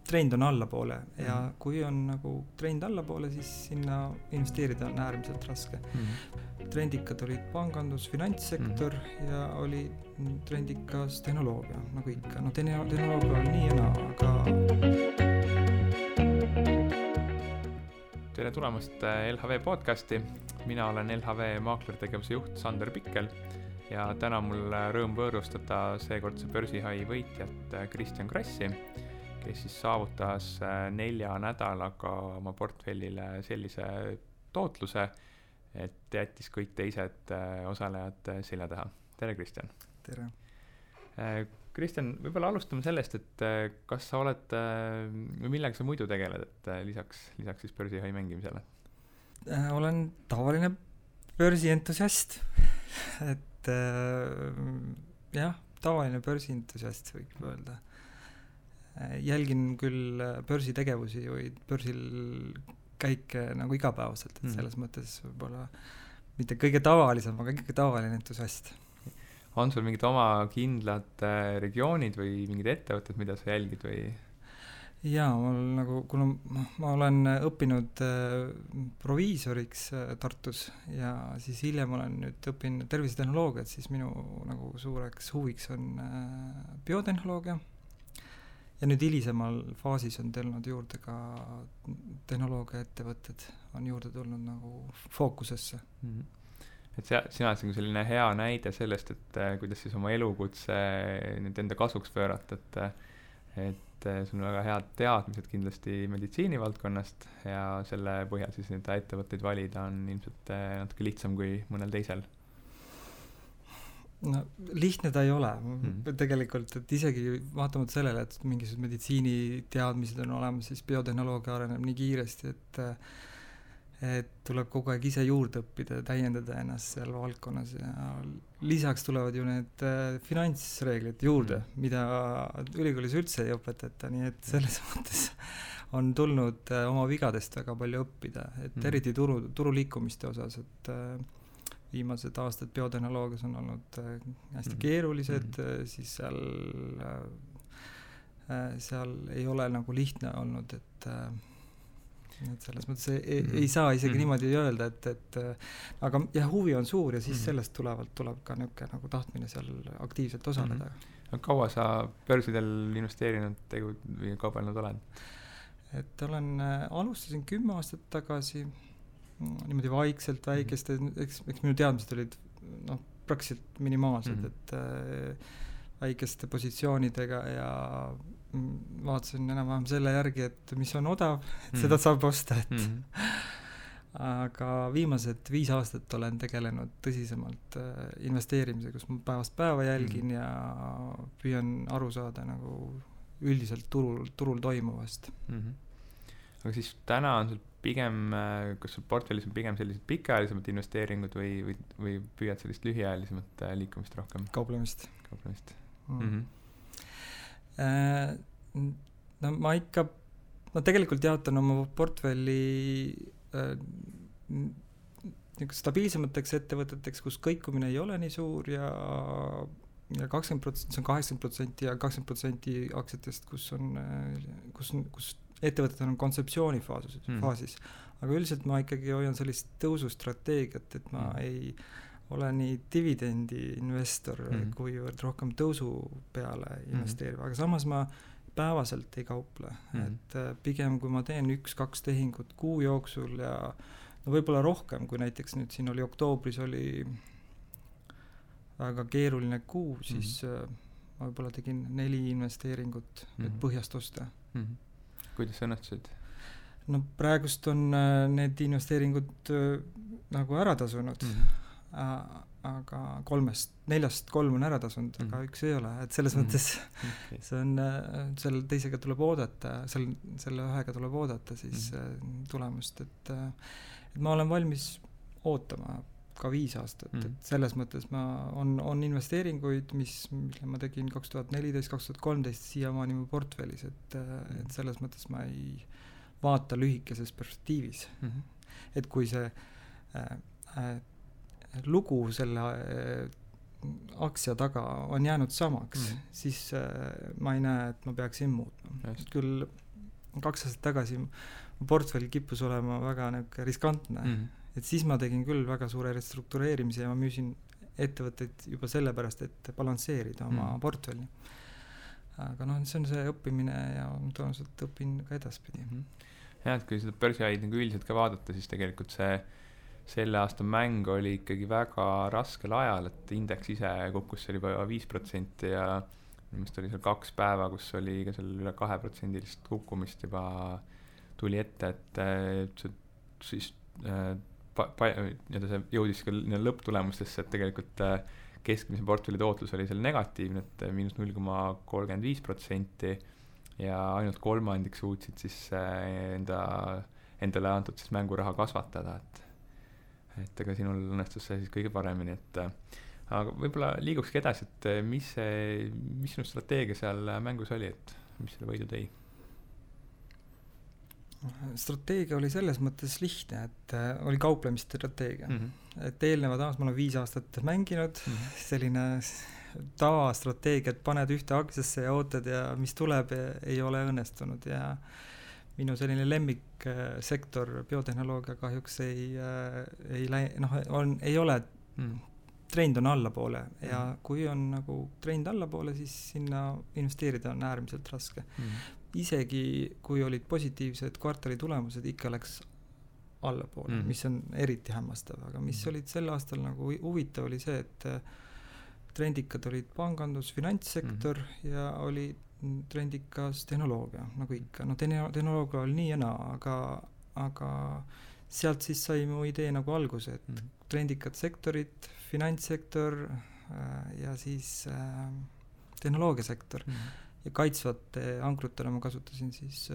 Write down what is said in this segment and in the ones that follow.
trend on allapoole ja kui on nagu trend allapoole, siis sinna investeerida on äärmiselt raske. Trendikad olid pangandus, finantssektor ja oli trendikas tehnoloogia, nagu ikka. No tehnoloogia on nii ja naa, aga... Tere tulemast LHV podcasti. Mina olen LHV maaklertegevuse juht Sander Pikkel ja täna mul rõõm võõrustada seekordse börsihai võitjat Kristjan Krassi, kes siis saavutas 4 nädalaga oma portfellile sellise tootluse, et jättis kõik teised osalejad selja taha. Tere, Kristjan! Tere! Kristjan, võib-olla alustame sellest, et kas sa oled, või millega sa muidu tegeled, et lisaks siis börsihai mängimisele? Olen tavaline börsientusiast, et jah, tavaline börsientusiast võib öelda. Jälgin küll börsitegevusi või börsil käike nagu igapäevaselt, et selles mõttes võib-olla mitte kõige tavalisem, aga ikkagi tavaline entusiast. On sul mingid oma kindlad regioonid või mingid ettevõtted, mida sa jälgid või? Jaa, kuna ma olen õppinud proviisoriks Tartus ja siis hiljem olen nüüd õppinud tervisetehnoloogiat, siis minu nagu suureks huviks on biotehnoloogia. Ja nüüd hilisemal faasis on tulnud juurde ka tehnoloogia ettevõtted, on juurde tulnud nagu fookusesse. Et sina oled selline hea näide sellest, et kuidas siis oma elukutse nüüd enda kasuks pöörata, et sul on väga head teadmised kindlasti meditsiinivaldkonnast ja selle põhjal siis neid ettevõtteid valida on ilmselt natuke lihtsam kui mõnel teisel. No, lihtne ta ei ole tegelikult, et isegi vaatamata sellele, et mingisugused meditsiiniteadmised on olemas, siis biotehnoloogia areneb nii kiiresti, et tuleb kogu aeg ise juurde õppida ja täiendada ennast seal valdkonnas ja lisaks tulevad ju need finantsreeglid juurde, mida ülikoolis üldse ei õpetata, nii et selles mõttes on tulnud oma vigadest väga palju õppida, et eriti turu liikumiste osas, et viimased aastad biotehnoloogias on olnud hästi keerulised, siis seal ei ole nagu lihtne olnud, et selles mõttes ei saa isegi niimoodi öelda, et aga jah, huvi on suur ja siis sellest tuleb ka niisugune nagu tahtmine seal aktiivselt osaleda. Kaua sa börsidel investeerinud või kaubelnud oled? Et alustasin 10 aastat tagasi niimoodi vaikselt väikeste, eks minu teadmised olid praktiliselt minimaalsed, et väikeste positsioonidega ja vaatasin enam-vähem selle järgi, et mis on odav, et seda saab osta, aga viimased 5 aastat olen tegelenud tõsisemalt investeerimise, kus ma päevast päeva jälgin ja püüan aru saada nagu üldiselt turul toimuvast. Aga siis täna on sul pigem, kas sul portfellis on pigem sellised pikaajalisemad investeeringud või püüad sellist lühiajalisemat liikumist rohkem? Kauplemist. Ma tegelikult jaotan oma portfelli stabiilsemateks ettevõteteks, kus kõikumine ei ole nii suur ja 20%, see on 80% ja 20% aktsiatest, kus ettevõtted on kontseptsioonifaasis. Aga üldiselt ma ikkagi hoian sellist tõusustrateegiat, et ma ei ole nii dividendi investor, kuivõrd rohkem tõusu peale investeerib. Aga samas ma päevaselt ei kauple. Et pigem kui ma teen 1-2 tehingut kuu jooksul ja võib-olla rohkem, kui näiteks nüüd siin oli oktoobris oli väga keeruline kuu, siis ma võib-olla tegin 4 investeeringut põhjast osta. Kuidas õnnetusid? No praegust on need investeeringud nagu ära tasunud, aga 4-st 3 on ära tasunud, aga 1 ei ole. Et selles mõttes see on, selle teisega tuleb oodata, selle ühega tuleb oodata siis tulemust, et ma olen valmis ootama ka 5 aastat, et selles mõttes on investeeringuid, mille ma tegin 2014-2013 siiamaani mu portfellis, et selles mõttes ma ei vaata lühikeses perspektiivis. Et kui see lugu selle aktsia taga on jäänud samaks, siis ma ei näe, et ma peaksin muutma. Küll 2 aastat tagasi mu portfell kippus olema väga niisugune riskantne. Et siis ma tegin küll väga suure restruktureerimise ja ma müüsin ettevõtteid juba sellepärast, et balansseerida oma portfelli. Aga see on see õppimine ja tõenäoliselt õpin ka edaspidi. Ja, et kui seda börsiaid nagu üldiselt ka vaadata, siis tegelikult selle aasta mäng oli ikkagi väga raskel ajal, et indeks ise kukkus seal juba 5% ja minu oli seal 2 päeva, kus oli ka seal üle 2% kukkumist juba tuli ette, et siis see jõudis ka lõpptulemustesse, et tegelikult keskmise portfelli tootlus oli seal negatiivne, et miinus 0,35% ja ainult kolmandik suutsid siis endale antud siis mänguraha kasvatada, et ega sinul õnnestus see siis kõige paremini, et aga võib-olla liigukski edasi, et mis sinu strateegia seal mängus oli, et mis selle võidu tõi? Strateegia oli selles mõttes lihtne, et oli kauplemisstrateegia. Et eelnevad aastad, ma olen 5 aastat mänginud, selline tavastrateegia, et paned ühte aktsiasse ja ootad ja mis tuleb, ei ole õnnestunud ja minu selline lemmiksektor biotehnoloogia kahjuks ei ole, trend on allapoole ja kui on nagu trend allapoole, siis sinna investeerida on äärmiselt raske. Isegi kui olid positiivsed kvartali tulemused, ikka läks allapoole, mis on eriti hämmastav, aga mis olid sel aastal nagu huvitav oli see, et trendikad olid pangandus, finantssektor ja oli trendikas tehnoloogia, nagu ikka. Tehnoloogia oli nii ja naa, aga sealt siis sai mu idee nagu alguse, et trendikad sektorid, finantssektor ja siis tehnoloogiasektor. Ja kaitsvate ankrutele ma kasutasin siis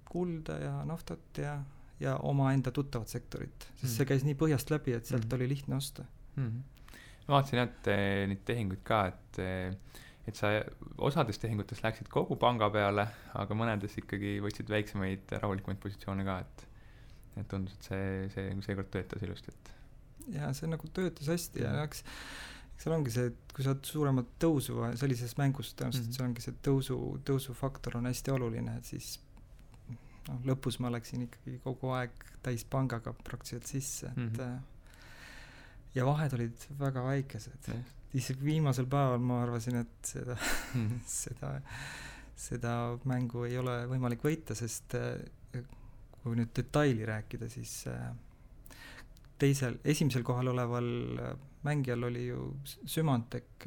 kulda ja naftat ja oma enda tuttavat sektorit, sest see käis nii põhjast läbi, et sealt oli lihtne osta. Ma vaatasin, et neid tehinguid ka, et sa osades tehingutes läksid kogu panga peale, aga mõnedes ikkagi võtsid väiksemaid rahulikumaid positsioone ka, et tundus, et see seekord töötas ilusti. Ja see nagu töötas hästi ja seal ongi see, et kui sa oled suuremat tõusu sellises mängus, tõenäoliselt see ongi see tõusufaktor on hästi oluline, et siis lõpus ma läksin ikkagi kogu aeg täis pangaga praktiliselt sisse, ja vahed olid väga väikesed. Isegi viimasel päeval ma arvasin, et seda mängu ei ole võimalik võita, sest kui nüüd detaili rääkida, siis esimesel kohal oleval mängijal oli ju Symantec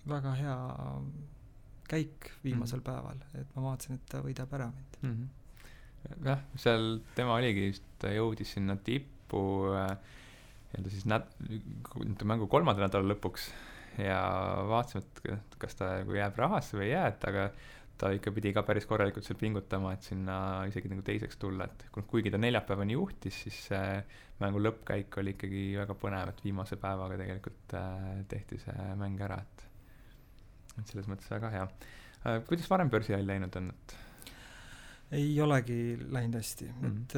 väga hea käik viimasel päeval, et ma vaatasin, et ta võidab ära mind. Jah, seal tema oligi just, ta jõudis sinna tippu siis mängu 3. nädala lõpuks ja vaatasime, et kas ta jääb rahasse või ei jää, aga ta ikka pidi ka päris korralikult seal pingutama, et sinna isegi nagu teiseks tulla, et kuigi ta neljapäevani juhtis, siis mängu lõppkäik oli ikkagi väga põnev, et viimase päevaga tegelikult tehti see mäng ära, et selles mõttes väga hea. Kuidas varem börsiajal läinud on? Ei olegi läinud hästi, et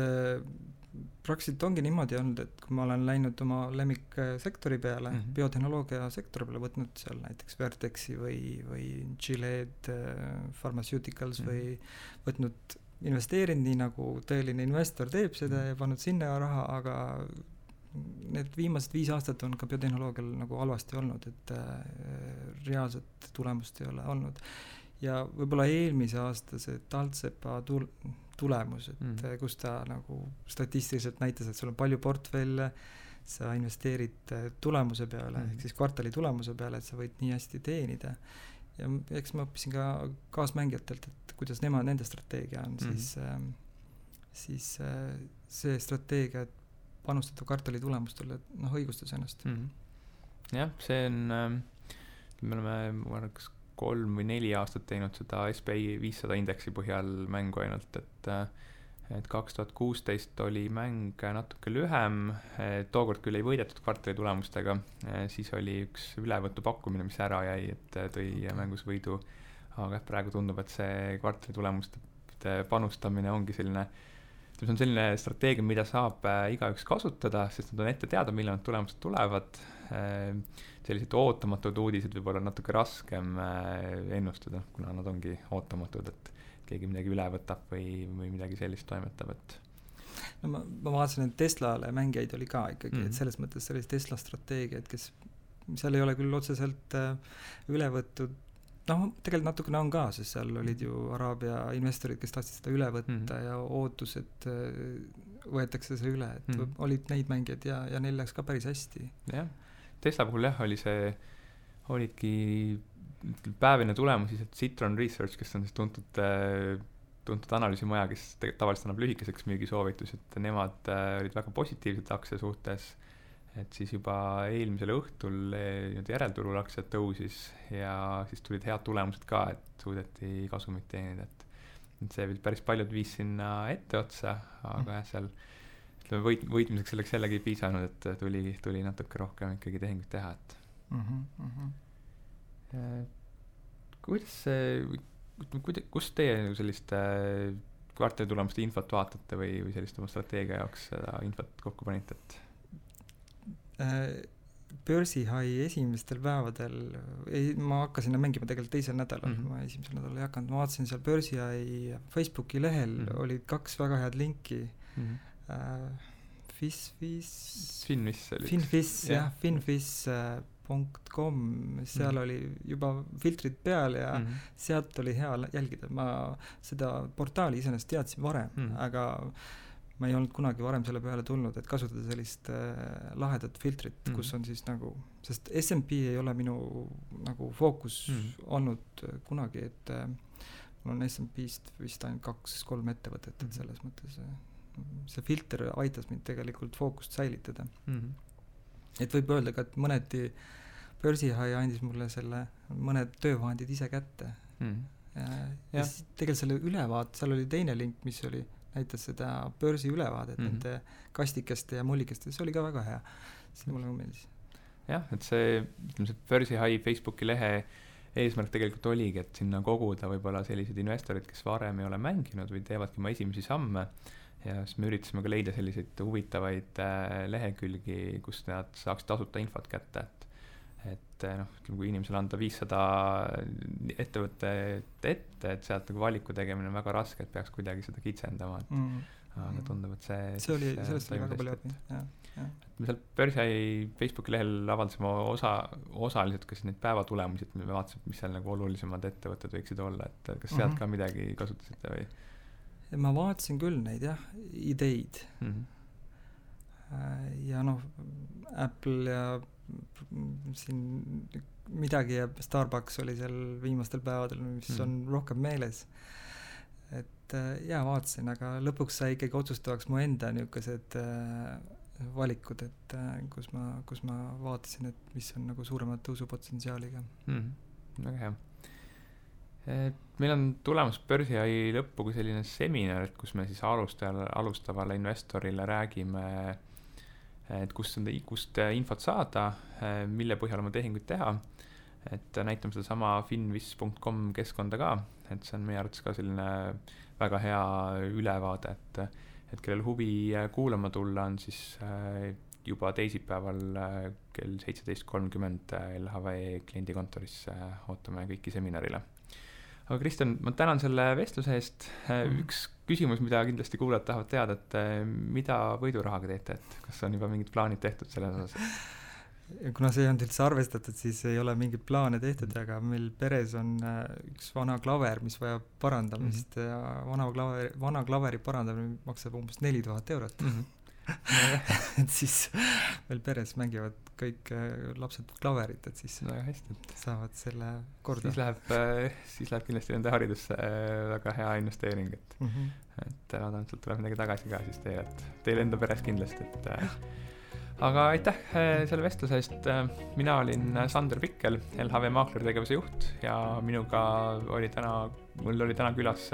praktiliselt ongi niimoodi olnud, et kui ma olen läinud oma lemmiksektori peale, biotehnoloogia sektori peale, võtnud seal näiteks Vertexi või Gilead Pharmaceuticals või võtnud investeerinud nii nagu tõeline investor teeb seda ja pannud sinna raha, aga need viimased 5 aastat on ka biotehnoloogial nagu halvasti olnud, et reaalset tulemust ei ole olnud. Ja võib-olla eelmise aasta see Taltsepa tulemus, et kus ta nagu statistiliselt näitas, et sul on palju portfelle, sa investeerid tulemuse peale, ehk siis kvartali tulemuse peale, et sa võid nii hästi teenida. Ja eks ma õppisin ka kaasmängijatelt, et kuidas nende strateegia on, siis see strateegia, et panustada kvartali tulemustele, õigustas ennast. Jah, see on, me oleme kas 3 või 4 aastat teinud seda SPI 500 indeksi põhjal mängu ainult, et 2016 oli mäng natuke lühem, tookord küll ei võidetud kvartali tulemustega, siis oli üks ülevõtu pakkumine, mis ära jäi, et tõi mängus võidu, aga praegu tundub, et see kvartali tulemuste panustamine ongi selline, see on selline strateegia, mida saab igaüks kasutada, sest nad on ette teada, millal nad tulemused tulevad. Sellised ootamatud uudised võib olla natuke raskem ennustada, kuna nad ongi ootamatud, et keegi midagi üle võtab või midagi sellist toimetab, et no ma vaatasin, et Teslale mängijaid oli ka ikkagi, et selles mõttes see oli Tesla strateegia, et kes seal ei ole küll otseselt üle võttud, noh, tegelikult natukene on ka, sest seal olid ju Araabia investorid, kes tahtsid seda üle võtta ja ootus, et võetakse see üle, et olid neid mängijaid ja neil läks ka päris hästi. Jah, Tesla puhul olidki päevine tulemus siis, et Citron Research, kes on siis tuntud analüüsimaja, kes tavaliselt annab lühikeseks müügisoovitusi, et nemad olid väga positiivsed aktsia suhtes, et siis juba eelmisel õhtul järelturul aktsiad tõusis ja siis tulid head tulemused ka, et suudeti kasumit teenida, et see päris paljud viis sinna etteotsa, aga jah, seal võitmiseks selleks jällegi ei piisanud, et tuli natuke rohkem ikkagi tehingut teha, et kus teie sellist kvartalitulemuste infot vaatate või sellist oma strateegia jaoks seda infot kokku panite, et börsihai esimestel päevadel ma hakkasin mängima tegelikult teisel nädalal, ma esimesel nädalal ei hakanud, ma vaatasin seal börsihai Facebooki lehel olid 2 väga head linki finfish.com, seal oli juba filtrid peal ja sealt oli hea jälgida, ma seda portaali iseenesest teadsin varem, aga ma ei olnud kunagi varem selle peale tulnud, et kasutada sellist lahedat filtrit, kus on siis nagu, sest S&P ei ole minu nagu fookus olnud kunagi, et mul on S&P-st vist ainult 2-3 ettevõtet, et selles mõttes see filter aitas mind tegelikult fookust säilitada. Et võib öelda ka, et mõneti börsihai andis mulle selle mõned töövahendid ise kätte. Ja tegelikult selle ülevaat, seal oli teine link, mis oli näitas seda börsi ülevaadet nende kastikeste ja mullikeste, see oli ka väga hea, see mulle meeldis. Jah, et see börsihai Facebooki lehe eesmärk tegelikult oligi, et sinna koguda võib-olla sellised investorid, kes varem ei ole mänginud või teevadki oma esimesi samme ja siis me üritasime ka leida selliseid huvitavaid lehekülgi, kus nad saaks tasuta infot kätte, et kui inimesele anda 500 ettevõtet ette, et sealt nagu valiku tegemine on väga raske, et peaks kuidagi seda kitsendama, aga tundub, et see oli, sellest oli väga palju abi, me seal börsihai Facebooki lehel avaldasime osaliselt kas neid päevatulemusi, et me vaatasime, mis seal nagu olulisemad ettevõtted võiksid olla, et kas sealt ka midagi kasutasite või? Ma vaatasin küll neid ideid ja Apple ja siin midagi ja Starbucks oli seal viimastel päevadel, mis on rohkem meeles, et vaatasin, aga lõpuks sai ikkagi otsustavaks mu enda niisugused valikud, et kus ma vaatasin, et mis on nagu suuremad tõusupotentsiaaliga. Väga hea. Meil on tulemas börsihai lõppu kui selline seminar, et kus me siis alustavale investorile räägime, et kust infot saada, mille põhjal oma tehinguid teha, et näitame seda sama finfish.com keskkonda ka, et see on meie arvates ka selline väga hea ülevaade, et kellel huvi kuulama tulla on siis juba teisipäeval kell 17.30 LHV kliendikontoris ootame kõiki seminarile. Aga Kristjan, ma tänan selle vestluse eest. Üks küsimus, mida kindlasti kuulajad tahavad teada, et mida võidurahaga teete, et kas on juba mingid plaanid tehtud selles osas? Kuna see ei olnud üldse arvestatud, siis ei ole mingid plaane tehtud, aga meil peres on üks vana klaver, mis vajab parandamist ja vana klaveri parandamine maksab umbes 4000 eurot. Et siis meil peres mängivad kõik lapsed klaverit, et siis hästi, saavad selle korda. Siis läheb kindlasti nende haridusse väga hea investeering, et loodan, et sealt tuleb midagi tagasi ka siis teile enda peres kindlasti, aga aitäh selle vestluse eest. Mina olin Sander Pikkel, LHV Maaklertegevuse juht ja mul oli täna külas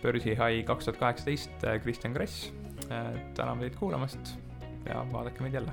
börsihai 2018 Kristjan Grass. Täname teid kuulamast ja vaadake meid jälle.